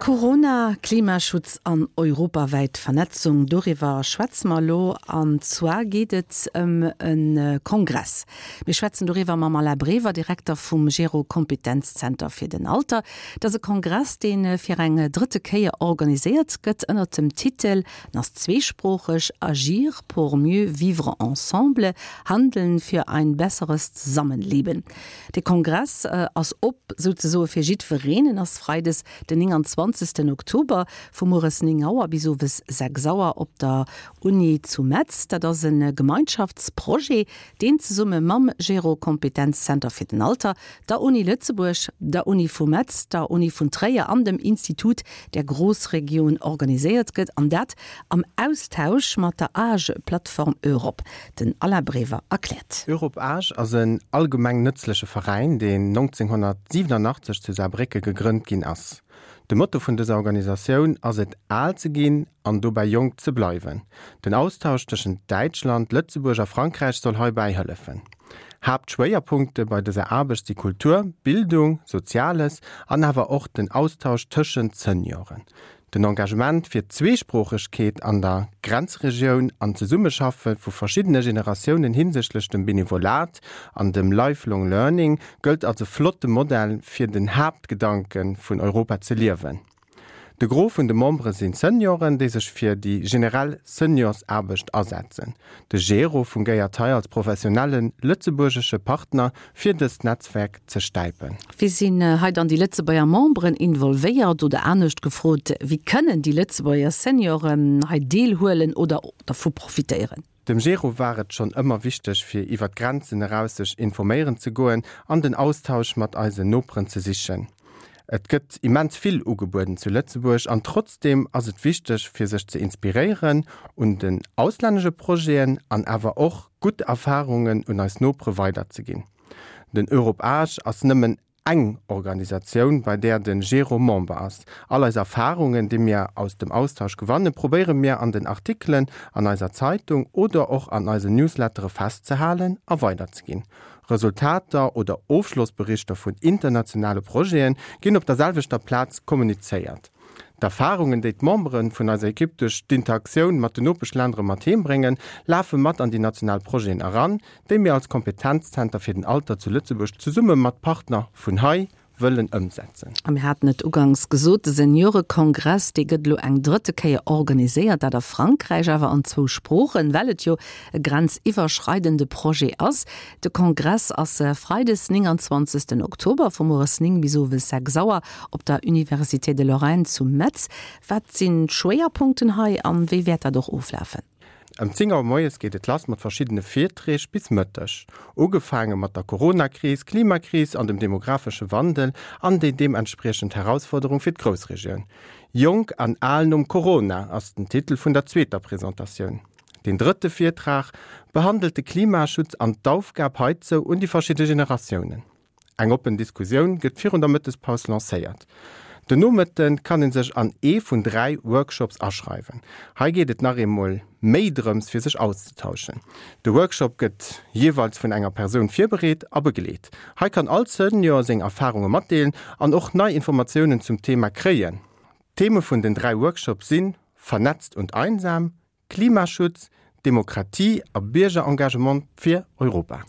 Corona, Klimaschutz an europawäit Vernetzung, doriwwer schwätze mer elo. An zwar geet et ëm e Kongress. Mir schwätzen doriwwer mam Alain Brever, Direkter vum Gero Kompetenzzenter fir den Alter. Et ass e Kongress, dee fir eng drëtte Kéier organiséiert gëtt ënnert dem Titel, en ass zweesproocheg, Agir pour mieux vivre ensemble, Handeln für ein besseres Zusammenleben. De Kongress ass op souzesoe fir jiddwereen. En ass freides den 29 Oktober vu mueres 9 Auer bis owes 6 Auer op der Uni zu Metz. Dat ass e Gemeinschaftsprojet, deen zesumme mam Gero Kompetenzzenter fir den Alter, der Uni Lëtzebuerg, der Uni vu Metz, der Uni vun Tréier an dem Institut der Großregion organiséiert gëtt, an dat am Austausch mat der Age Plattform Europe. Den Alain Brever erkläert. Europe Age ass en allgemeng nëtzleche Veräin, deen 1987 zu Saarbrécke gegrënnt ginn ass. De Motto vun dëser Organisatioun ass et al ze ginn an dobäi jonk ze bleiwen. Den Austausch tëschent Däitschland, Lëtzebuerg a Frankräich soll heibäi hëllefen. Haaptschwéierpunkte bei dëser Aarbecht si Kultur, Bildung, Soziales an awer och den Austausch tëschent Senioren. Den Engagement fir d'Zweesproochegkeet an der Grenzregioun an d'Zesummeschaffe vu verschiddene Generatiounen hinsichtlech dem Benevolat an dem Lifelong Learning gëllt als e flotte Modell fir den Haaptgedanke vun Europa ze liewen. De Gros vun de Membere sinn Senioren, déi sech fir déi generell Seniorsaarbecht asetzen. De Gero fungéiert hei als professionelle lëtzebuergesche Partner fir dëst Netzwerk ze stäipen. Wéi sinn hei dann déi Lëtzebuerger Memberen involvéiert? Oder anescht gefrot, wéi kënnen déi Lëtzebuerger Senioren hei deelhuelen oder dervu profitéieren? Dem Gero war et schonn ëmmer wichteg, fir iwwer d'Grenzen eraus sech informéieren ze goen an den Austausch mat eisen Noperen ze sichen. Et gëtt immens vill ugebueden zu Lëtzebuerg an trotzdeem ass et wichteg, fir sech ze inspiréieren un den auslännesche Projeten an awer och gutt Erfarungen un eis Nopere weiderzeginn. Den Europe Age ass nëmmen eng Organisatioun, bei där de Gero Member ass. All eis Erfarungen, déi mir aus dem Austausch gewannen, probéiere mir an den Artikelen an eiser Zeitung oder och an eisen Newslettere festzehalen a weiderzeginn. Resultater oder Ofschlossberichter vun internationale Projete ginn op der selwechter Plaz kommunizéiert. D'Erfarungen, déi d'Membere vun eiser Ekipp duerch d'Interaktioun mat den Nopeschländere mat heem bréngen, lafe mat an déi national Projeten eran, déi mir als Kompetenzzenter fir den Alter zu Lëtzebuerg zesumme mat Partner vun hei wëllen ëmsetzen. A mir haten et uganks gesot, de Seniorekongress, dee gëtt elo eng drëtte Kéier organiséiert, dat a Frankräich, awer an zwou Sproochen, well et jo e grenziwwerschreidende Projet ass. De Kongress ass freides 29 Oktober vu mueres 9 bis owes 6 Auer op der Université de Lorraine zu Metz. Wat sinn d'Schwéierpunkten hei an wéi wäert dat och oflafen? Ëm 10 Auer moies geet et lass mat verschiddene Virträg bis Mëtteg. Ugefaange mat der Coronakris, Klimakris an dem demographesche Wandel an déi deementspriechend Herausforderung fir d'Groussregioun. Jonk an al nom Corona ass den Titel vun der zweeter Presentatioun. Deen drëtte Virtrag behandelt de Klimaschutz an d'Aufgab heizou un déi verschidde Generatiounen. Eng oppen Diskussioun gëtt virun der Mëttespaus lancéiert. Den Nomëtte kann ee sech an ee vun 3 Workshops aschreiwen. Hei geet et nach eemol méi drëms fir sech auszetauschen. De Workshop gëtt jeeweils vun enger Persoun virbereet a begleet. Hei kann all Senior seng Erfarunge matdeelen an och nei Informatiounen zum Thema kréien. D'Theme vun den 3 Workshops sinn, Vernetzt und einsam, Klimaschutz, Demokratie a Biergerengagement fir Europa.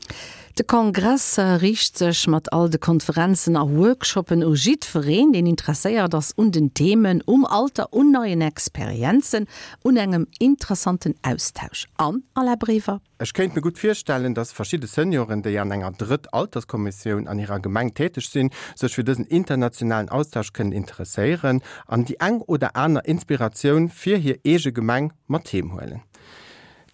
De Kongress riicht sech mat all de Konferenzen a Workshoppen u jiddwereen, deen interesséiert ass un den Themen, um Alter, un neien Experienzen, un engem interessanten Austausch. An, Alain Brever? Ech kéint mir gutt virstellen, dass verschidde Senioren, déi an enger Drëtt-Alterskommissioun an hirer Gemeng täteg sinn, sech fir dësen internationalen Austausch kënnen interesséieren an déi eng oder aner Inspiratioun fir hir eege Gemeng mat heem huelen.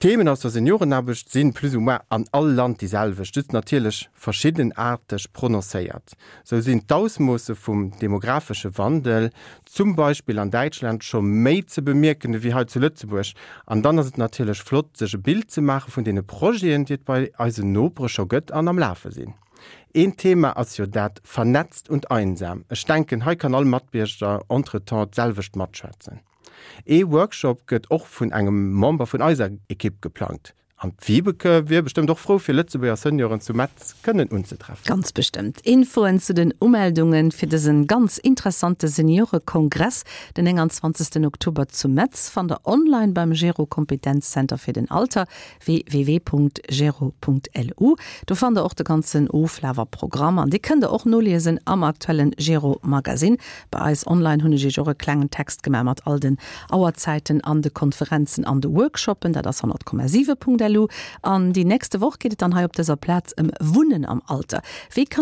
D'Themen aus der Seniorenaarbecht si plus ou moins an all Land déi selwecht, just natierlech verschiddenaarteg prononcéiert. Sou sinn d'Ausmoosse vum demographesche Wandel zum Beispill an Däitschland scho méi ze bemierken ewéi hei zu Lëtzebuerg. An dann ass et natierlech flott, sech e Bild ze maache vun deene Projeten, déi et bei eisen Nopere scho gëtt an am Lafe sinn. Een Thema ass jo dat Vernetzt und einsam. Ech denken, hei kann all Matbierger entretemps d'selwecht matschwätzen. Ee Workshop gëtt och vun engem Member vun eiser Ekipp geplangt. An d'Vibeke wier bestëmmt och frou fir Lëtzebuerger Senioren zu Metz kënnen unzetreffen. Ganz bestëmmt. Infoen zu den Umeldungen fir dësen ganz interessante Seniorekongress den 29 Oktober zu Metz fannt der online beim Gero Kompetenzzenter fir den Alter, www.gero.lu. Do fannt der och de ganzen Oflaf a Programm an dee kënnt der och noliesen am aktuellen Gero Magazine. Bei eis online hunn ech iech och e klengen Text gemaach mat all den Auerzäiten an de Konferenzen an de Workshoppen. Dat ass 100,7.lu. An déi nächste Woch geet et dann hei op dëser Plaz ëm Wunnen am Alter. Wéi kann.